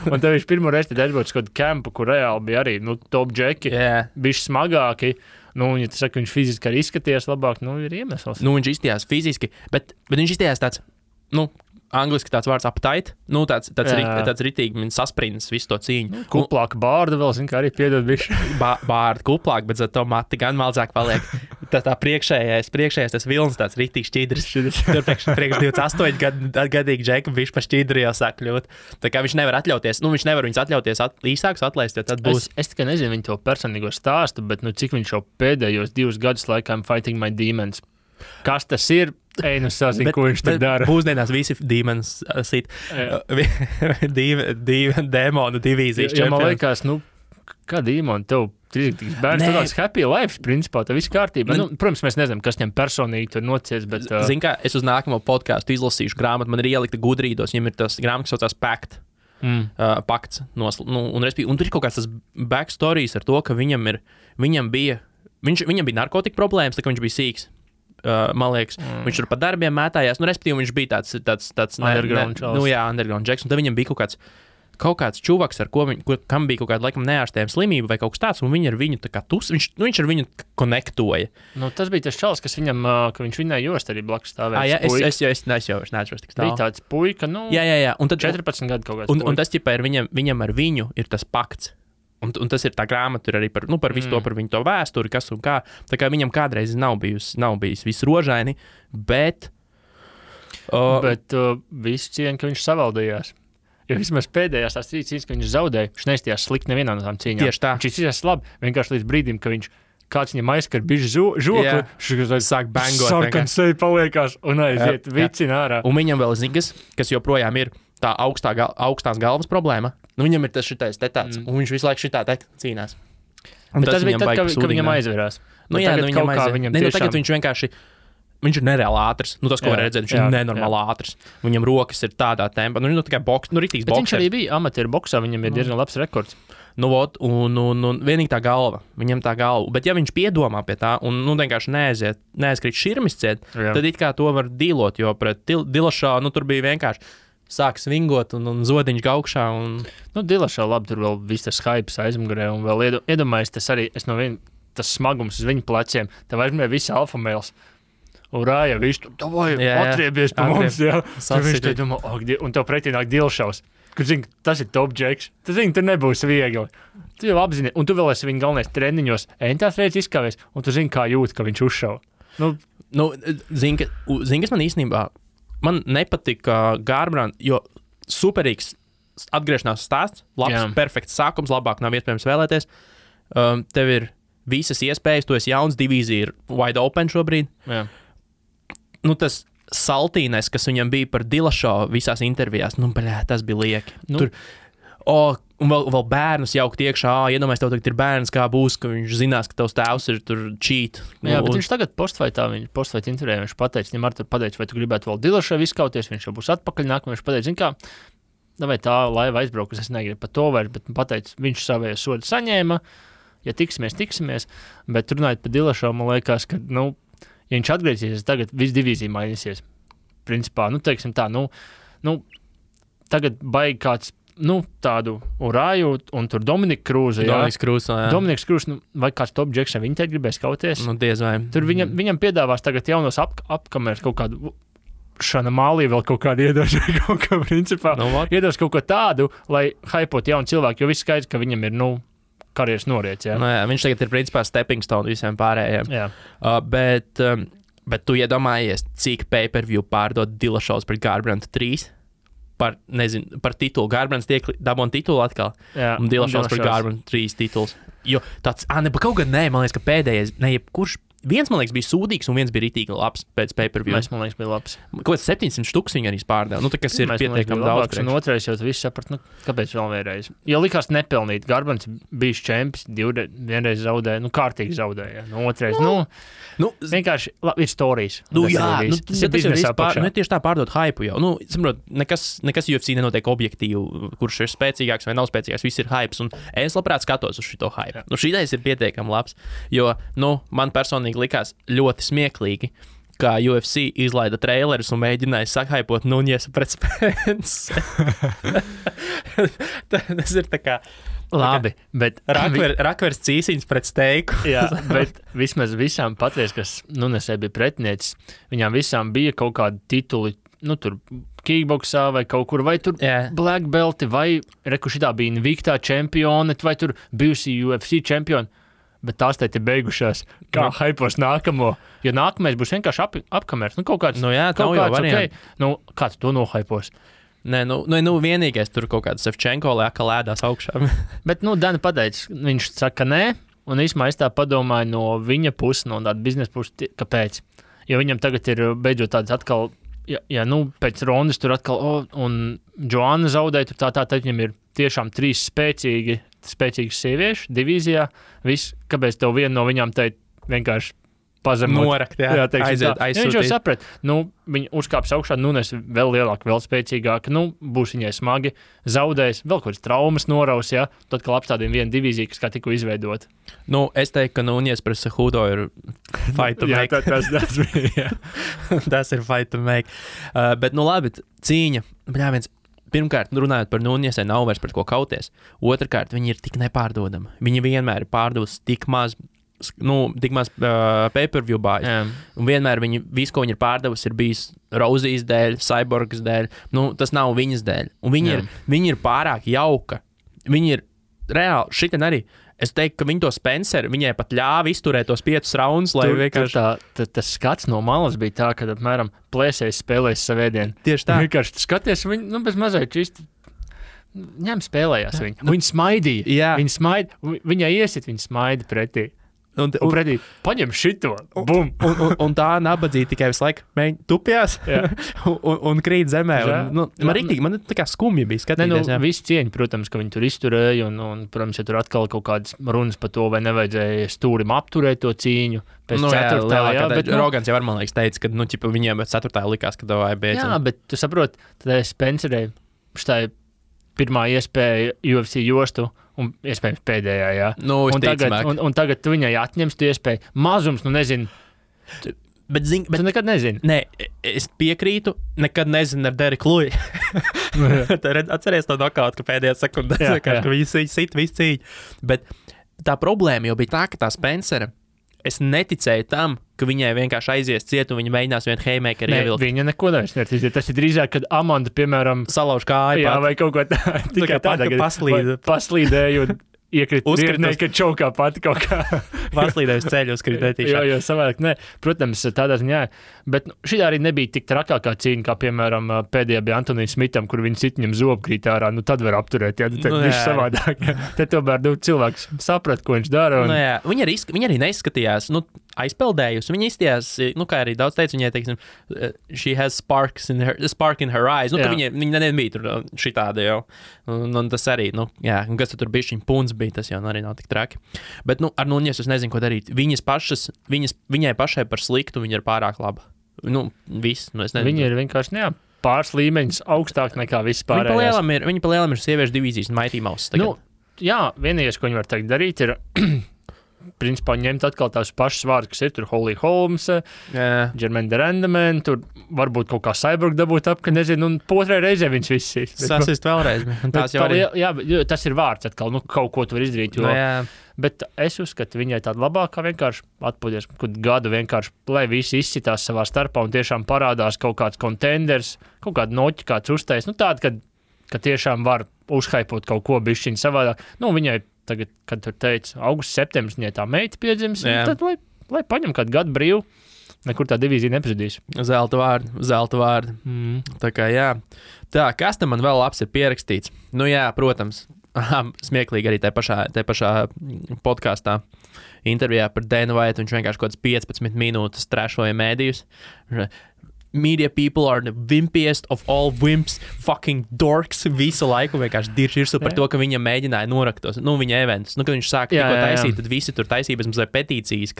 Un tev viņš pirmo reizi tad aizbrauc kaut kādu kempu, kur reāli bija arī, top džeki, bišķi smagāki. Ja tu saki, viņš fiziski arī izskatījās labāk, ir iemesls. Viņš izskatījās fiziski, bet viņš izskatījās tāds, angliski tāds vārds appetite, tāds ritīgi sasprindis visu to cīņu. Kuplāka bārda vēl, kā arī piedod bišķi. Bārda kuplāk, bet to mati gan maldzāk paliek. Tā priekšējais tas vilns tāds ritīgi šķidrs. Tur priekš 28 gadīgi džeki bišķi pa šķidru jau sāk kļūt. Tā kā viņš nevar atļauties, viņš nevar viņus atļauties īsāks atlaist, jo tad būs. Es tikai nezinu viņu to personīgo stāstu, bet cik viņš jau pēdējos 2 gadus laikā Fighting My Demons. Kas tas ir? Sazinu, ko viņš tur dara. Būsdienās visi demons sit. Demonu divīzijas čempioni. Man liekas, kā demoni tev trīsīgs bērns, tu tāds happy life, principā, tev viss kārtībā. Protams, mēs nezinām, kas viņam personīgi tur nocies, bet... Zini kā, es uz nākamo podcastu izlasīšu grāmatu, man ir ielikta gudrīdos, viņam ir tas grāmata, kas saucās Pact. Pakts. Un tur ir kaut kāds tas backstories ar to, ka viņam bija narkotika problēmas, tā kā viņš bija sīks. Man liekas, viņš tur pa darbiem mētājās, respektīvi viņš bija tāds underground čals. Underground džeks, un tad viņam bija kaut kāds čuvaks, kam bija kaut kāda, laikam, neārstējama slimība vai kaut kas tāds, un viņi ar viņu tā kā viņš ar viņu konektoja. Tas bija tas čals, kas viņam, ka viņš viņai jost arī blakus stāvēja. Es neatceros tik tālu. Bija tāds puika, Jā. Un tad 14 gadu kaut kāds puika. Un tas, ķipā, viņam ar viņu ir tas pakts. Un tas ir tā grāmata, tur arī par visu to, par viņu to vēsturi, kas un kā. Tā kā viņam kādreiz nav bijis viss rožaini, bet... Bet visu cieņu, ka viņš savaldījās. Jo vismaz pēdējās tās cīņas, ka viņš zaudēja, viņš neizstījās slikti nevienā no tām cīņām. Tieši tā. Viņš izstījās labi, vienkārši līdz brīdim, ka kāds viņam aizskar bišķi žokli, viņš sāk bangot. Sarkan sevi paliekās un aiziet vicina ārā. Un viņam vēl zigas, kas joprojām ir tā augstās galvas problēma. Viņam ir tas šitais te tāds, un viņš visu laiku šitā te cīnās. Bet tas bija tad, kad viņam aizverās. Nu, jā, tagad nu, kaut kā aiziet. viņam Ne, nu, tiešām... tagad viņš vienkārši, viņš ir nereāli ātrs. Nu, tas, ko Jā, var redzēt, viņš jā, ir nenormāli ātrs. Viņam rokas ir tādā tempā. Nu, tikai ritīgs Bet viņš boksers. arī bija amatieru boksā, viņam ir diezgan labs rekords. Nu, ot, un vienīgi tā galva. Viņam tā galva. Bet ja viņš piedomā pie tā un vienkārši neaizkrīt širmis ciet, Jā. tad it kā to var dīlot, jo pret Dilašā, tur bija vienkārši sāk svingot un zodiņš gaukšā. Un... Nu, Dilašā labi, tur vēl viss tas hypes aizmugurē, un vēl iedomājies, tas arī, tas smagums uz viņu pleciem, tev aizmirē visi alfa mēls. Urāja, viņš tur, davai, atriebies pa mums, jā. Tur viņš te domā, un tev pretī nāk Dilšaus. Kur zini, tas ir top džeks. Tu zini, tur nebūs viegli. Tu jau apzini, un tu vēl esi viņa galvenais treniņos, entās reizes izkāvies, un tu zini, kā jūt, ka viņš uzšauj. Zini, kas man īstenībā, man nepatika Garbrandt, jo superīgs atgriešanās stāsts, labs, perfekts sākums, labāk nav iespējams vēlēties. Tev ir visas iespējas, tu esi jauns, divīzija ir wide open šobrīd. Jā. Tas saltīnais, kas viņam bija par Dilašo visās intervijās, tas bija lieki. Tur, un vēl bērnus jaukt iekšā, iedomājies, tev tagad ir bērns, kā būs, ka viņš zinās, ka tavs tēvs ir tur cheat. Jā, bet viņš tagad postfaitā intervijā, viņš pateica, viņam ar tur pateica, vai tu gribētu vēl Dilašo izkauties, viņš jau būs atpakaļ nākamā, viņš pateica, zin kā, vai tā laiva aizbraukas, es negribu par to vairs, bet pateica, viņš savējo sodu saņēma, ja tiksimies, bet runājot par Dilašo, man liekas, ka, ja viņš atgriezīsies, tagad viss divīzija mainīsies. Principā, teiksim tā, tagad baigi kāds, tādu Urāju un tur Dominiku Krūzu. Dominiks Krūzs, vai kāds top džeks, viņi te gribēs kauties. Diez vai. Tur viņam piedāvās tagad jaunos apkameras kaut kādu Šana Mālī vēl kaut kādu iedos, kaut kā principā. Iedos kaut ko tādu, lai haipot jaunu cilvēku, jo viss skaidrs, ka viņam ir, karjeras noriets, jā. Viņš tagad ir principā stepping stone visiem pārējiem. Jā. Bet tu iedomājies, cik pay-per-view pārdod Dilašovs pret Garbrandt 3 par titulu. Garbrandt dabūna titulu atkal. Jā, un Dilašovs pret Garbrandt 3 tituls. Jo tāds, kaut gan man liekas, ka pēdējais, kurš viens, man liekas, bija sūdīgs, un viens bija ritīgi labs pēc pay-per-view. Man liekas, bija labs. Kaut kāds 700 štuks viņi arī pārdeva. Tas ir pietiekami daudz. Un otrais jau viss saprat, kāpēc vēl vienreiz. Jo likās nepelnīt. Garbrands bijis čempions, vienreiz zaudēja, kārtīgi zaudēja. Otrais, vienkārši ir storijas. Tas ir tieši tā pārdot hypu jau. Saprot, nekas UFC nenotiek objektīvi, kurš ir spēcīgāks vai nav spēcīgāks. Viss ir hypes, un es labprāt skatos uz šito hype. Šitais ir pietiekami labs, jo, man personīgi likās ļoti smieklīgi, kā UFC izlaida trailerus un mēģināja sakhaipot Nuņesu pret Spence. Tas ir tā kā... Labi, bet... Rakvers cīsiņas pret steiku. Jā, bet vismaz visām patreiz, kas Nuņesē bija pretinieks, viņām visām bija kaut kādi tituli, tur kickboksā vai kaut kur, vai tur black belti, vai šitā bija Invictā čempione, vai tur bijusi UFC čempioni. Bet tās te ir beigušās, kā haipos nākamo. Jo nākamais būs vienkārši apkamers. Kaut kāds, kaut kāds okay. Kā tu to nohaipos? Nē, vienīgais tur kaut kāds Sevčenko lēka lēdās augšā. Bet, Dani pateica, viņš saka nē, un īsumā es tā padomāju no viņa puses, no tāda biznesa puses, kāpēc. Jo viņam tagad ir beidzot tāds atkal, pēc rondas tur atkal, un Joanna zaudēja, tur tā, viņam ir tiešām 3 spēcīgas sieviešu divīzijā. Viss, kāpēc tev viena no viņām teikt vienkārši pazemot. Norakt, aiziet. Viņš jau saprat, viņa uzkāps augšā, Nunes vēl lielāka, vēl spēcīgāka, būs viņai smagi, zaudēs, vēl kaut kāds traumas noraus, tad, kad apstādījumi vienu divīziju, kas kā tikko izveidot. Es teiktu, ka Nunes pret Cejudo ir fight to make. Tas bija, Tas ir fight to make. Bet, labi, cīņa, pirmkārt, runājot par Nuņesē, nav vairs pret ko kauties. Otrakārt, viņi ir tik nepārdodami. Viņi vienmēr ir pārdevusi tik maz pay-per-view bāzi. Un vienmēr visu, ko viņi ir pārdevusi, ir bijis Rozijas dēļ, Cyborgas dēļ. Tas nav viņas dēļ. Un viņi ir pārāk jauka. Viņi ir reāli, šitien arī. Es teiktu, ka viņi to Spencer, viņai pat ļāva izturēt tos 5 raundus, lai vienkārši... Tas skats no malas bija tā, kad apmēram plēsējs spēlēs savēdienu. Tieši tā. Vienkārši skaties, viņi, bez mazliet čisti ņem spēlējās viņi. Viņi smaidīja. Jā. Viņai iesit, viņi smaida pretī. Un pretī, paņem šito, bum! Un tā nabadzīja tikai visu laiku tupjās un krīt zemē. Man tā kā skumji bija skatīties. Visi cieņi, protams, ka viņi tur izturēja, un protams, ja tur atkal kaut kādas runas par to, vai nevajadzēja stūrim apturēt to cīņu. Pēc ceturtā, bet Rogans jau man liekas teica, ka viņiem ceturtā likās, ka vai beidzam. Jā, bet tu saproti, tad Spencerei štai pirmā iespēja UFC jostu, un iespējams pēdējā, jā. Un tagad tu viņai atņemsi tu iespēju. Mazums, nezinu. Bet tu nekad nezini. Nē, es piekrītu, nekad nezinu ar Dereku Luju. Atceries to nokautu, ka pēdējā sekundē, ka viņi sit visu cīņu. Bet tā problēma jau bija tā, ka tā Spencera, es neticēju tam, ka viņai vienkārši aizies ciet un viņa mēģinās vienu haymakeru ievilkt. Viņa neko nevis. Tas ir drīzāk, kad Amanda, piemēram, salauž kāju. Jā, vai kaut ko tikai tāda, ka paslīdēja un iekrīt virknē, ka čaukā pati kaut kā. Paslīdēja uz ceļu, uzkrīt netīšā. Jo savādāk, nē. Protams, tādā ziņā. Bet šī arī nebija tik trakākā cīņa, kā, piemēram, pēdējā bija Antonijam Smitam, kur viņi sit viņam zobu krīt ārā. Tad var apturēt, viss savādāk. Te tomēr cilvēks saprat, ko viņš dara. Viņa arī neizskatījās, aizpeldējusi. Viņa izstījās, kā arī daudz teica, viņai, teiksim, she has spark in her eyes. Viņa nebija tur šitāda jau. Un tas arī, kas tur bija šim puns bija, tas jau arī nav tik traki. Bet, ar Nuņes es nezinu, ko darīt. Viņai pašai par sliktu, viņa ir pārāk laba. Viss, es nezinu. Viņa ir vienkārši, pāris līmeņus augstāk nekā viss pārējās. Viņa pa lielam ir sieviešu divīzijas un Mighty Mouse tagad. Vienīgais, ko viņi var tagad darīt, ir principā ņemt atkal tās pašas vārdas, kas ir tur Holly Holmes, Jermaine Durandman, tur varbūt kaut kā Cyborg dabūt ap, ka nezinu, un otrai reizē viņš viss ir. Sasist vēlreiz. Tas ir vārds atkal, kaut ko tu var izdarīt. Bet es uzskatu, viņai tāda labākā vienkārši atpūties, kad gadu vienkārši, lai visi izcitās savā starpā un tiešām parādās kaut kāds contenders, kaut kāda noķi, kāds uztais, tāda, ka tiešām var uzhaipot kaut ko bišķiņu savādāk. Viņai tagad, kad tur teica, augusts, septembris, viņai tā meita piedzims, tad lai paņem kādu gadu brīvu, nekur tā divīzija nepazudīs. Zelta vārdi. Tā kā, jā. Tā, kas tam man vēl labs ir pierakstīts? Protams, smieklīgi arī tajā pašā podkastā intervijā par Dana White, viņš vienkārši kaut kāds 15 minūtes trešoja mēdījus. Media people are the wimpiest of all wimps, fucking dorks, visu laiku vienkārši dirž par to, ka viņa mēģināja noraktos, viņa eventus. Kad viņš sāka tikko taisīt, tad visi tur taisīja bez mazliet petīcijas,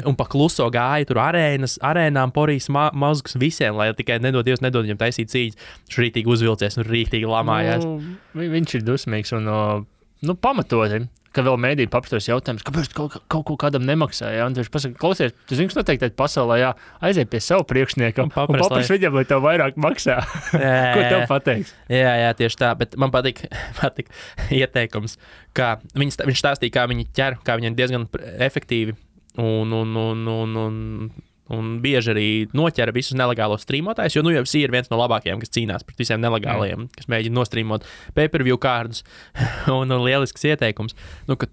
un pa kluso gāja tur arēnām porīs mazgus visiem, lai tikai nedod viņam taisīt cīņas. Viņš rītīgi uzvilcies un rītīgi lamājās. Viņš ir dusmīgs un pamatoti. Ka vēl mēdī papstos jautājums, kāpēc kaut ko kādam nemaksāja. Un viņš pasaka, klausies, tu zini, kas noteikti pasaulē, aiziet pie savu priekšnieka un papras viņam, lai tev vairāk maksā. Ko tev pateiks? Jā, tieši tā, bet man patīk ieteikums, kā viņš stāstīja, kā viņi ķer, kā viņi ir diezgan efektīvi un bieži arī noķera visus nelegālos streamotājus, jo UFC ir viens no labākajiem, kas cīnās pret visiem nelegālajiem, kas mēģina nostreamot pay-per-view kārdus, un lielisks ieteikums, ka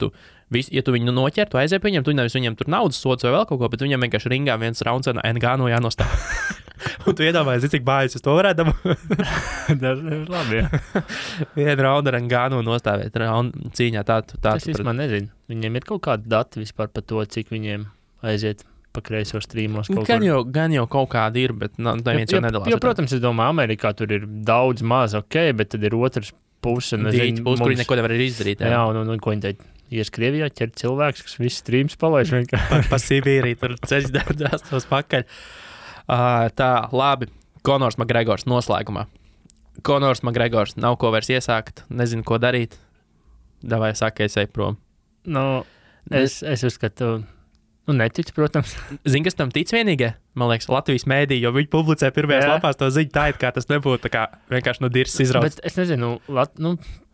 ja tu viņu noķer, tu aiziet viņam, tu nevis viņam tur naudas sods vai vēl kaut ko, bet viņam vienkārši ringā viens rauns un Ngannou jānostāv. Un tu iedomājies, cik bājas es to varētu dabūt. Tas ir labi, jā. Vienu raundu ar Ngannou nostāvēt cīņā. Tas īstenībā nezinu. Viņiem ir kaut kādi dati vispār par to, cik viņiem aiziet pa kreiso streamos kaut kur. Gan jau kaut kādi ir, bet neviens jau nedalās. Jo, protams, es domāju, Amerikā tur ir daudz maz, bet tad ir otrs puse. Kur viņi neko nevar izdarīt. Jā, un ko viņi teica? Ies Krievijā ķert cilvēks, kas visu streams palaiž vienkārši. Pa Sibīriju tur ceļš daudzās tos pakaļ. Tā, labi. Conors McGregors noslēgumā. Conors McGregors nav ko vairs iesākt, nezinu, ko darīt. Davai, saka, es eju prom. Es uzskatu... neticu, protams. Zini, kas tam tic vienīgie? Man liekas, Latvijas mēdī, jo viņi publicē pirmajās lapās to ziņu tā, kā tas nebūtu tā kā vienkārši no dirses izrauts. Bet es nezinu,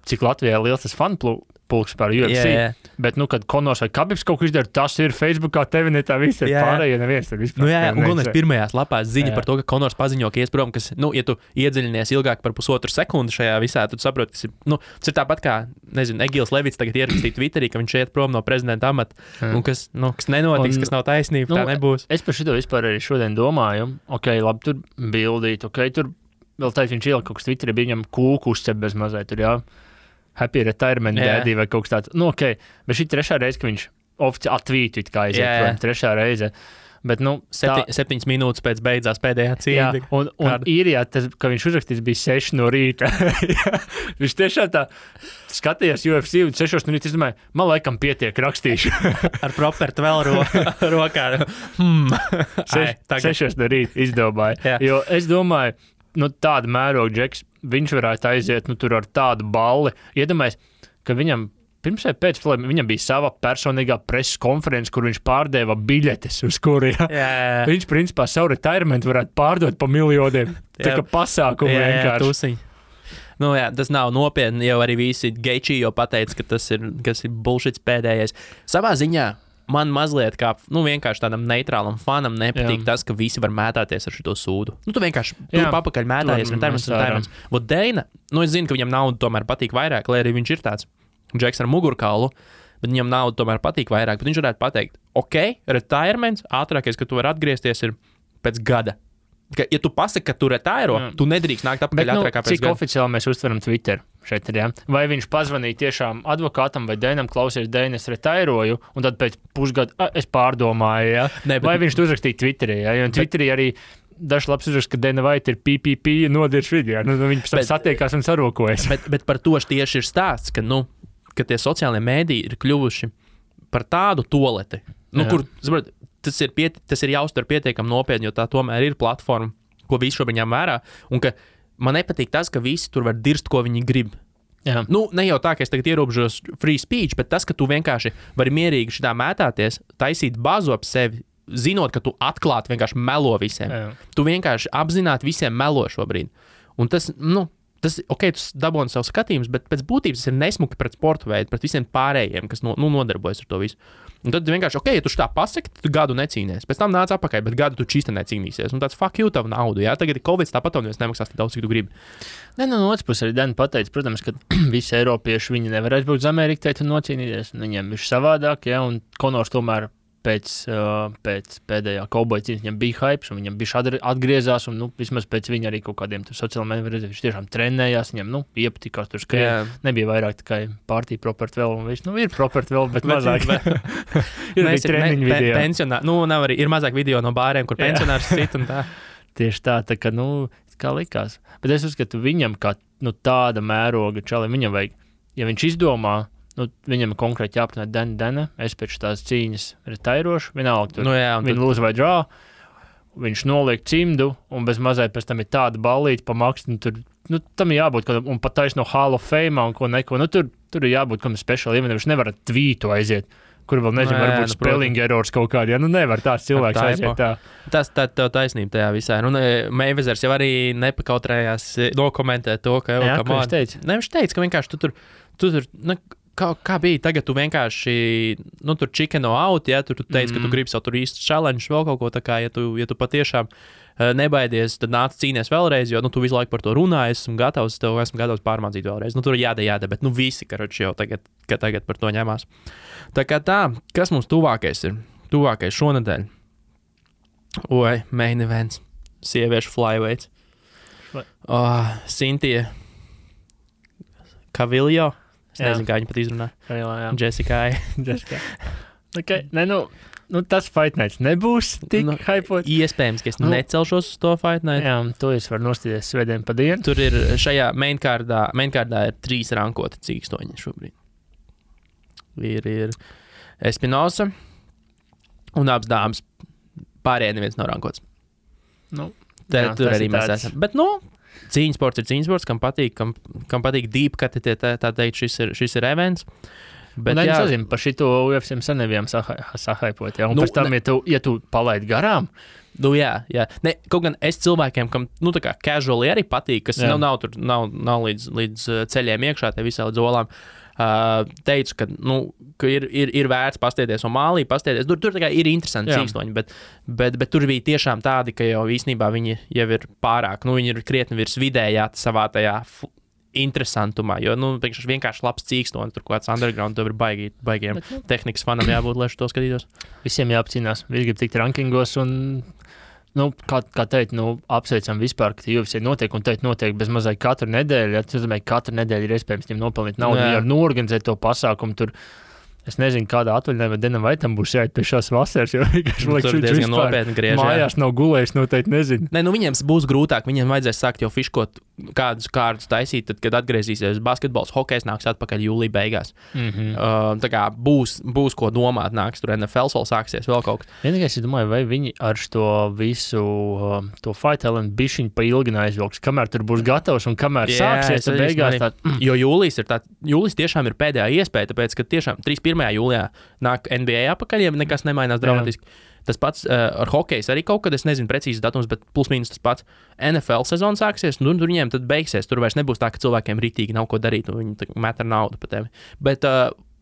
cik Latvijā liels tas fanu pulks par UFC. Bet, kad Conors vai Khabibs kaut ko izdara, tas ir Facebookā, tevi ne tā visi ir pārējie, neviens tur vispār. Un pirmajās lapās ziņa par to, ka Conors paziņo, ka ies prom, kas, ja tu iedziļinies ilgāk par pusotru sekundi šajā visā, tad saproti, kas ir, tas ir tāpat kā, nezinu, Egils Levits tagad ierakstīja Twitterī, ka viņš iet prom no prezidenta amata, un kas nenotiks, kas nav taisnība, tā nebūs. Es par šito vispār arī šodien domāju, labi, tur bildīt, tur vēl tā, viņš ielika kaut kas Twitterī, bija viņam kūku uzcep bez mazai tur, Happy retirement daddy vai kaut kas tāds. Bet šī trešā reize, ka viņš oficiāli atvītu, kā aiziet, trešā reize. Bet, 7 minūtes pēc beidzās pēdējā cīņa. Un īrijā, ka viņš uzrakstīs, bija 6 no rīta. Viņš tiešām tā skatījās UFC un 6 no rīta, es domāju, man laikam pietiek rakstīšu. Ar propertu vēl rokā. 6 no rīta izdomāja. Jo es domāju, tāda mēroga Džeks, viņš varētu aiziet, tur ar tādu balli. Iedomājies, ka viņam pirms vai pēc filmiem viņam bija sava personīgā preses konference, kur viņš pārdeva biļetes, uz kuriem viņš, principā, savu retirement varētu pārdot pa miljoniem. Tā kā pasākumu vienkārši. Tas nav nopietni, jau arī visi Geičī jau pateica, ka tas ir bullshits pēdējais. Savā ziņā man mazliet kā, vienkārši tādam neitrālam fanam nepatīk tas, ka visi var mētāties ar šito sūdu. Tu vienkārši papakaļ mētājies retirements. Vot Deina, es zinu, ka viņam naudu tomēr patīk vairāk, lai arī viņš ir tāds Džeks ar mugurkaulu, bet viņam naudu tomēr patīk vairāk. Bet viņš varētu pateikt, retirements, ātrākais, ka tu vari atgriezties ir pēc gada. Ja tu pasaki, ka tu retiro, tu nedrīkst nākt apakaļ ātrākā pēc gada. Cik oficiāli mēs uztveram Twitter šeit ir, Vai viņš pazvanīja tiešām advokātam vai Deinam, klausies, Deina, es retiroju, un tad pēc pusgada es pārdomāju, Vai viņš to uzrakstīja Twitterī, Jo Twitterī arī dažs labs uzraksts, ka Dana White ir PPP nodirš video. Viņi pēc tam satiekās un sarokojas. Bet par to tieši ir stāsts, ka tie sociālie mēdīji ir kļuvuši par tādu toleti, kur, tas ir jāuztver pietiekami nopietni, jo tā tomēr ir platforma, ko visi šobrīd ņem vērā, un ka man nepatīk tas, ka visi tur var dirst, ko viņi grib. Jā. Ne jau tā, ka es tagad ierobežos free speech, bet tas, ka tu vienkārši vari mierīgi šitā mētāties, taisīt bazu ap sevi, zinot, ka tu atklāti vienkārši melo visiem. Jā. Tu vienkārši apzināti visiem melo šobrīd. Un tas tu dabūni savu skatījumus, bet pēc būtības tas ir nesmuki pret sporta veidu, pret visiem pārējiem, kas nodarbojas ar to visu. Un tad vienkārši, ja tu tā pasaki, tad tu gadu necīnies. Pēc tam nāc apakaļ, bet gadu tu čista necīnīsies. Un tāds fuck you tavu naudu, Tagad ir Covid, tāpat un nemaksās tik daudz, cik tu gribi. No otras puses arī Dana pateica, protams, ka visi eiropieši viņi nevar aizbraukt uz Ameriku un nocīnīties. Viņiem ir savādāk, un Konors tomēr pēc pēdējā kauboja cīņas viņam bija hypes, un viņam bija atgriezās, un vismaz pēc viņa arī kaut kādiem sociālajiem mēdījiem redzēja, viņš tiešām trenējās, viņam iepatikās tur skrien. Nebija vairāk tikai partija property vēl, un viss, ir property vēl, bet mazāk. Ir arī treniņu video. Nav arī, ir mazāk video no bāriem, kur pensionārs sit un tā. Tieši tā kā, kā likās. Bet es uzskatu, viņam kā, tāda mēroga čalim, viņam vajag, ja viņš izdomā, viņam konkrēti jāprunā Dana, es pēc tās cīņas retairošu, vienalga tur, viņa lūdzu vai drā, viņš noliek cimdu, un bez mazai pēc tam ir tāda ballīte pa maksu, tur, tam ir jābūt, un pat taisa no Hall of Fame, un ko neko, tur ir jābūt kam special event, viņš nevar tvītu aiziet, kur vēl nezinu, varbūt spelling errors kaut kādi, nevar tāds cilvēks aiziet tā. Tas tev taisnība tajā visā. Mayweathers jau arī nepakautrējās nokomentēt to, ka viņš teica? Viņš teica, ka vienkārši tu tur kā bija, tagad tu vienkārši, tur chickeno out, tu teici, ka tu gribi savu tur īstu challenge, vēl kaut ko tā kā, ja tu patiešām nebaidies, tad nāc cīnies vēlreiz, jo, tu visu laiku par to runāji, esmu gatavs pārmācīt vēlreiz. Tur ir jāda, bet, visi, karoči jau tagad par to ņemās. Tā kā tā, kas mums tuvākais ir? Tuvākais šonedēļ. Main events. Sieviešu flyweights. Cynthia Cavillo. Es nezinu, kā viņa pat izrunā. Jessica. Okay. Tas Fight Nights nebūs tik hypot. Iespējams, ka es necelšos uz to Fight Night. Jā, to es varu nostīties svētdien pa dienu. Tur ir šajā mainkārdā ir 3 rankoti cīkstoņi šobrīd. Ir Espinosa un abas dāmas. Pārējie neviens nav rankots. Tur arī mēs esam. Bet, cīņas sports ir cīņas sports, kam patīk deep cut, tā teikt, šis ir events. Bet, es nezinu, par šito UFC sen nebijām sahaipot, un pēc tam, ja tu palaidi garām. Jā. Kaut gan es cilvēkiem, kam, tā kā casually arī patīk, kas nav līdz ceļiem iekšā, te visā līdz olām, teicu, ka ir vērts pastiepties un mālī pastiepties. Tur tā kā ir interesanti cīkstoņi, bet tur bija tiešām tādi, ka jau īstenībā viņi jau ir pārāk, viņi ir krietni virs vidējā savā tajā interesantumā, jo, vienkārši labs cīkstonis, tur kāds underground, tur ir baigiem tehnikas fanam jābūt, lai to skatītos. Visiem jāapcīnās, visi grib tikt rankingos un, kā teikt, apsveicam vispār, ka UFC notiek un notiek bez mazai katru nedēļu, katru nedēļu ir iespējams viņiem nopelnīt naudu, ja norganizēt to pasākumu, tur Es nezinu, kādā atvaļinājumā Denam Vaitam būs jāiet pie šās vasaras, jo vienkārši liekas, Tur diezgan nopietni griež. Mājās nav gulējis, noteikti nezinu. Nē, nu viņiem būs grūtāk, viņiem vajadzēs sākt jau fiškot kādus kārtus taisīt, tad, kad atgriezīsies basketbols, hokejs nāks atpakaļ jūlijā beigās. Tā kā būs ko domāt, nāks tur NFL vēl sāksies, vēl kaut kas. Vienīgais, es domāju, vai viņi ar šo visu to Fight Island bišķiņu pa ilgi neaizvilks, kamēr tur būs gatavs un kamēr sāksies, tad beigās tā... Jo jūlijas tiešām ir pēdējā iespēja, tāpēc, ka tiešām 31. jūlijā nāk NBA apakaļ, ja nekas nemainās dramatiski. Tas pats ar hokeju arī kaut kad, es nezinu precīzi datums, bet plus mīnus tas pats. NFL sezona sāksies, un tur viņiem tad beigsies. Tur vairs nebūs tā, ka cilvēkiem ritīgi nav ko darīt, un viņi met ar naudu pa tevi. Bet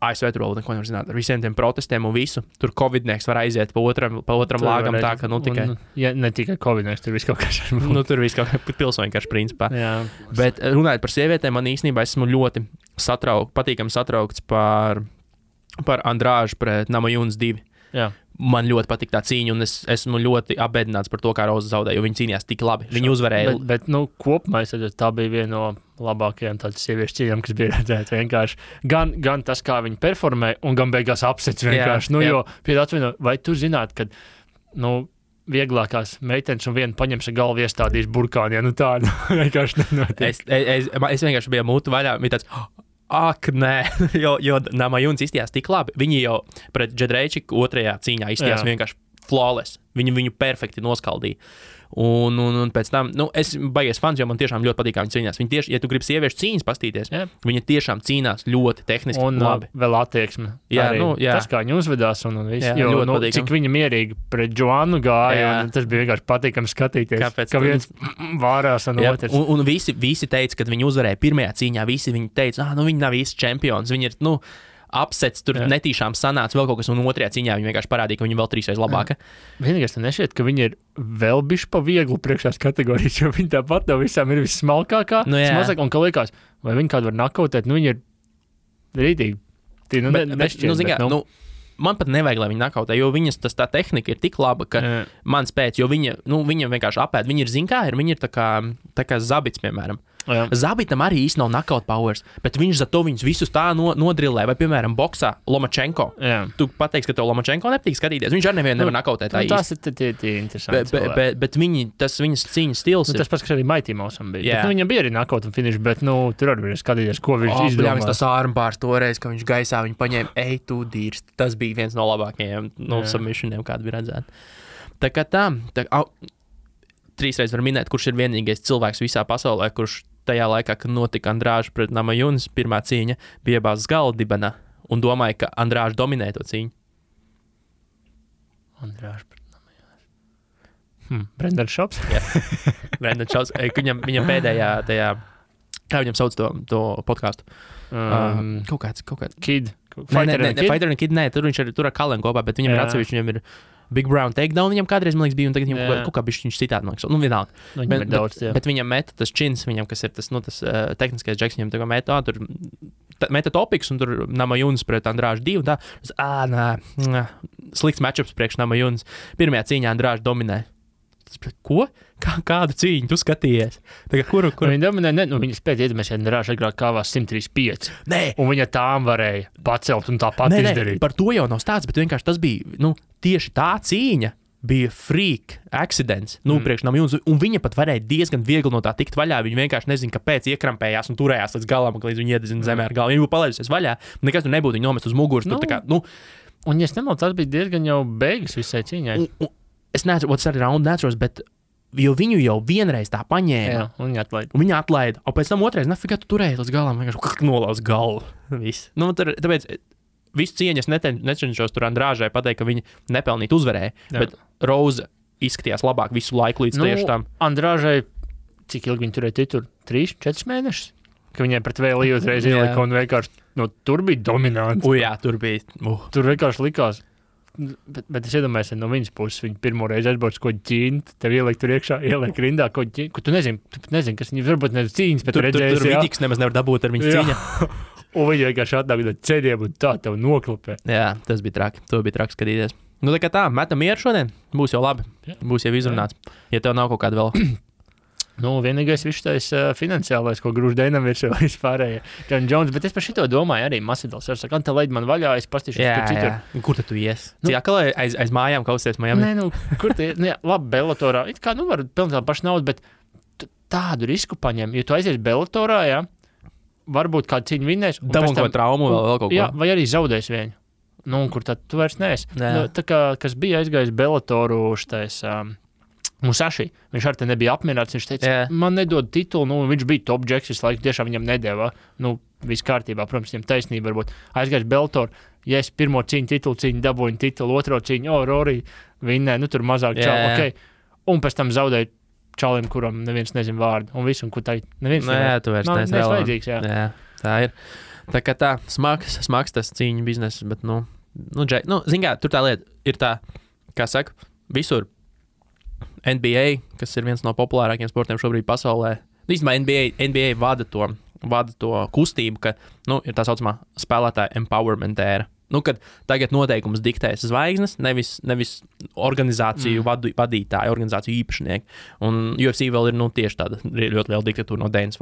ASV tur vēl neko nevar zināt ar visiem tiem protestiem un visu. Tur covidnieks var aiziet pa otram lāgam tā, ka tikai... Ja ne tikai covidnieks, tur viss kaut kas. Tur viss kaut kā pilsoņu karš principā. Jā. Bet runājot par sievietēm, man īstenībā esmu ļoti patīkami satraukts par Andrāžu pret Namajunas 2. Jā. Man ļoti patīk tā cīņa, un es esmu ļoti apbēdināts par to, kā Roza zaudēja, jo viņi cīnījās tik labi. Viņi uzvarēja. Bet kopumā tā bija viena no labākajām tādas sieviešu cīņām, kas bija redzēta vienkārši. Gan tas, kā viņi performē, un gan beigās apsets vienkārši. Jo, vai tu zināt, ka, vieglākās meitenes un viena paņems ar galvu iestādīs burkāni, tā vienkārši nenotiek. Es vienkārši biju mūtu vaļā, bija tāds... Ak, nē, jo Namajunas izstījās tik labi. Viņi jau pret Džedrejčiku otrajā cīņā izstījās vienkārši flawless. Viņu perfekti noskaldīja. Un pēc tam, es baigies fans, jo man tiešām ļoti patīk, kā viņi cīnās. Viņi tieši, ja tu gribi sieviešu cīņas pastīties, viņi tiešām cīnās ļoti tehniski un labi. Un vēl attieksme. Jā. Tas, kā viņi uzvedās un viss. Jo, cik viņa mierīgi pret Joannu gāja, un tas bija vienkārši patīkami skatīties. Kāpēc? Ka viens vārās un otrs. Un visi teica, kad viņi uzvarēja pirmajā cīņā, visi viņi teica, viņi nav īsti čempions, viņi ir, apsets, tur netīšām sanāca vēl kaut kas, un otrajā cīņā viņi vienkārši parādīja, ka viņi vēl 3 reizes labāka. Vienīgais tam nešķiet, ka viņi ir vēl bišķi pa vieglu priekšās kategorijas, jo viņi tāpat no visām ir vissmalkākā, smazāk, un ka liekas, vai viņi kādu var nakautēt, viņi ir rītīgi. Nešķiet, man pat nevajag, lai viņi nakautē, jo viņas tā tehnika ir tik laba, ka man spēc, jo viņa vienkārši apēd, viņi ir viņi ir tā kā zabits, piemēram. Zabitam arī īsti nav knockout powers, bet viņš za to viņus visus tā nodrillē, vai, piemēram, boksā Lomachenko. Tu pateiksi, ka tev Lomachenko nepatīk skatīties. Viņš arī nevienu nevar knockoutēt tā īsti. Tas ir interesanti. Bet viņas cīņas stils ir... Tas pats, kas arī Mighty Mousam bija. Bet, viņam bija arī knockout un finish, bet tur arī bija skatīties, ko viņš izdomā. Tas armbārs toreiz, ka viņš gaisā viņu paņēma, tu dīrs. Tas bija viens no labākajiem submissioniem, kāda bija redzēta. Tā kā 3 reizes var minēt, kurš ir vienīgais cilvēks visā pasaulē, kurš tajā laikā, kad notika Andrāža pret Namajunas pirmā cīņa, bija iebāzts galva dibenā un domāja, ka Andrāža dominē to cīņu. Andrāža pret Namajunas. Brendan Shops? Jā, Brendan Shops. Viņam pēdējā tajā, kā viņam sauc to podcastu? Kaut kāds. Kid. Fighter and Kid, nē, tur viņš ir tur ar Kalenu kopā, bet viņam ir atsevišķi, viņam ir Big Brown takedown, viņam kādreiz, man liekas, bija, un tagad viņam kaut kā viņš citādi, man liekas, vienalga. Bet viņam meta tas čins, viņam, kas ir tas tehniskais džeks, viņam tagad tur meta topiks, un tur Namajunas pret Andrāžu 2, un tā, slikts matchups priekš Namajunas. Pirmajā cīņā Andrāžu dominē. Ko? Kādu cīņu tu skatījies? Kuru? Viņa dominē, viņa spēja iedomāties, ja Andrāža agrāk kāvās 135. Nē. Un viņa tām varēja pacelt un tāpat izdarīt. Par to jau nav stāsts, bet vienkārši tas bija, tieši tā cīņa bija freak accidents, priekš Namajunas, un viņa pat varēja diezgan viegli no tā tikt vaļā. Viņa vienkārši nezina, kāpēc iekrampējās un turējās līdz galam, līdz viņa iededzina zemē ar galvu. Viņa būtu palaidusies vaļā, nekas tur nebūtu, viņa nomest uz muguras. Un, ja es nemaldos, tas bija diezgan jau beigas visai cīņai. Es neatceros, tas arī raundu neatceros, bet jo viņu jau vienreiz tā paņēma. Jā, un viņa atlaida. Un pēc tam otrais, nafigā tu turēji līdz galam, vienkārši nolauz galvu. Viss. Tāpēc visu cieņas necenšos tur Andrāžai pateikt, ka viņa nepelnīt uzvarēja, bet Roza izskatījās labāk visu laiku līdz tieši tam. Andrāžai, cik ilgi viņa turēja titulu? 3-4 mēnešus? Ka viņai pret vēl uzreiz ielika un vienkārši, tur bija dominants. Jā, tur bija. Tur vienkārši likās. Bet es iedomājos, no viņas puses viņa pirmo reizi aizbrauc ko ķīnt, tev ieliek tur iekšā, ieliek rindā ko ķīnt, ko tu nezini, kas viņa varbūt nezinu cīņas, bet redzēsi, tur Vidiks nemaz nevar dabūt ar viņas cīņa. Un viņa vienkārši atnāk no ceļiem un tā tev noklapē. Jā, tas bija traki, to bija traki skatīties. Tā kā tā, metam mieru šodien, būs jau labi, būs jau izrunāts, ja tev nav kaut kāda vēl. Nu, vienīgais vištais finansiālais, ko grūž Deinam virsū vispārējie. John Jones, bet es par šito domāju arī Masvidals. Es saku, Ante, leid man vaļā, es pastīšos, kur citur. Kur tu ies? Cik akalē aiz mājām kausties Miami? Nē, kur tu ies? Nu, jā, labi, Bellatorā. It kā, var pelnīt tādu pašu naudu, bet tādu risku paņem. Jo tu aizies Bellatorā, jā, varbūt kādu cīņu vinnēs. Dabūn ko traumu vēl kaut ko. Jā, vai arī zaudēs viņu. Nu, un kur tad tu vairs neesi? Nu, tā kā, kas bija aizgājis Bellatoru šitais... Musashi, viņš ar te nebija apmierināts, viņš teica, man nedod titulu, nu, viņš bija top džeks, visu laiku tiešām viņam nedēvā, nu, viss kārtībā, protams, viņam taisnība varbūt, aizgājis Bellator, ja es pirmo titulu cīņu dabūju titulu, otro cīņu, Rory, vinnē, nu, tur mazāk čau, ok, un pēc tam zaudēju čalim, kuram neviens nezin vārdu, un visu, un kur tā, neviens tu vairs neesi vajadzīgs, jā, tā ir, tā kā tā, smags tas cīņu biznes, bet, zin kā, tur tā lieta ir tā, kā saka, visur, NBA, kas ir viens no populārākajiem sportiem šobrīd pasaulē. Īstenībā NBA vada to kustību, ka ir tā saucamā spēlētāja empowerment ēra. Kad tagad noteikumus diktēs zvaigznes, nevis organizāciju vadītāji, organizāciju īpašnieki. Un UFC vēl ir tieši tāda ļoti liela diktatūra no Dana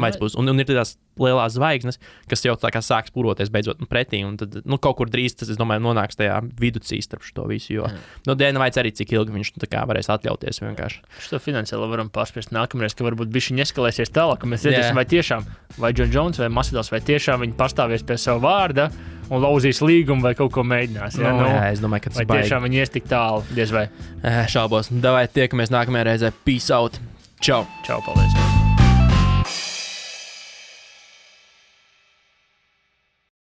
White puses. Un ir tās lielās zvaigznes, kas jau tā kā sāk spūroties beidzot pretī. Un tad kaut kur drīz tas, es domāju, nonāks tajā viducī starp šo visu. Jo Dana White arī cik ilgi viņš tā kā varēs atļauties vienkārši. Šo finansiāli varam pārspēst nākamreiz, ka varbūt bišķi eskalēsies tālāk, ka mēs redzēsim, vai tiešām, vai John Jones vai Masvidals, vai tiešām viņi pastāvies pie savu vārda un lauzīs līgumu vai kaut ko mēģinās. Jā, es domāju, ka tas vai tiešām viņi ies tik tālu, diez vai. Šaubos. Davai tiekamies nākamajā reizē. Peace out. Čau. Čau, paldies.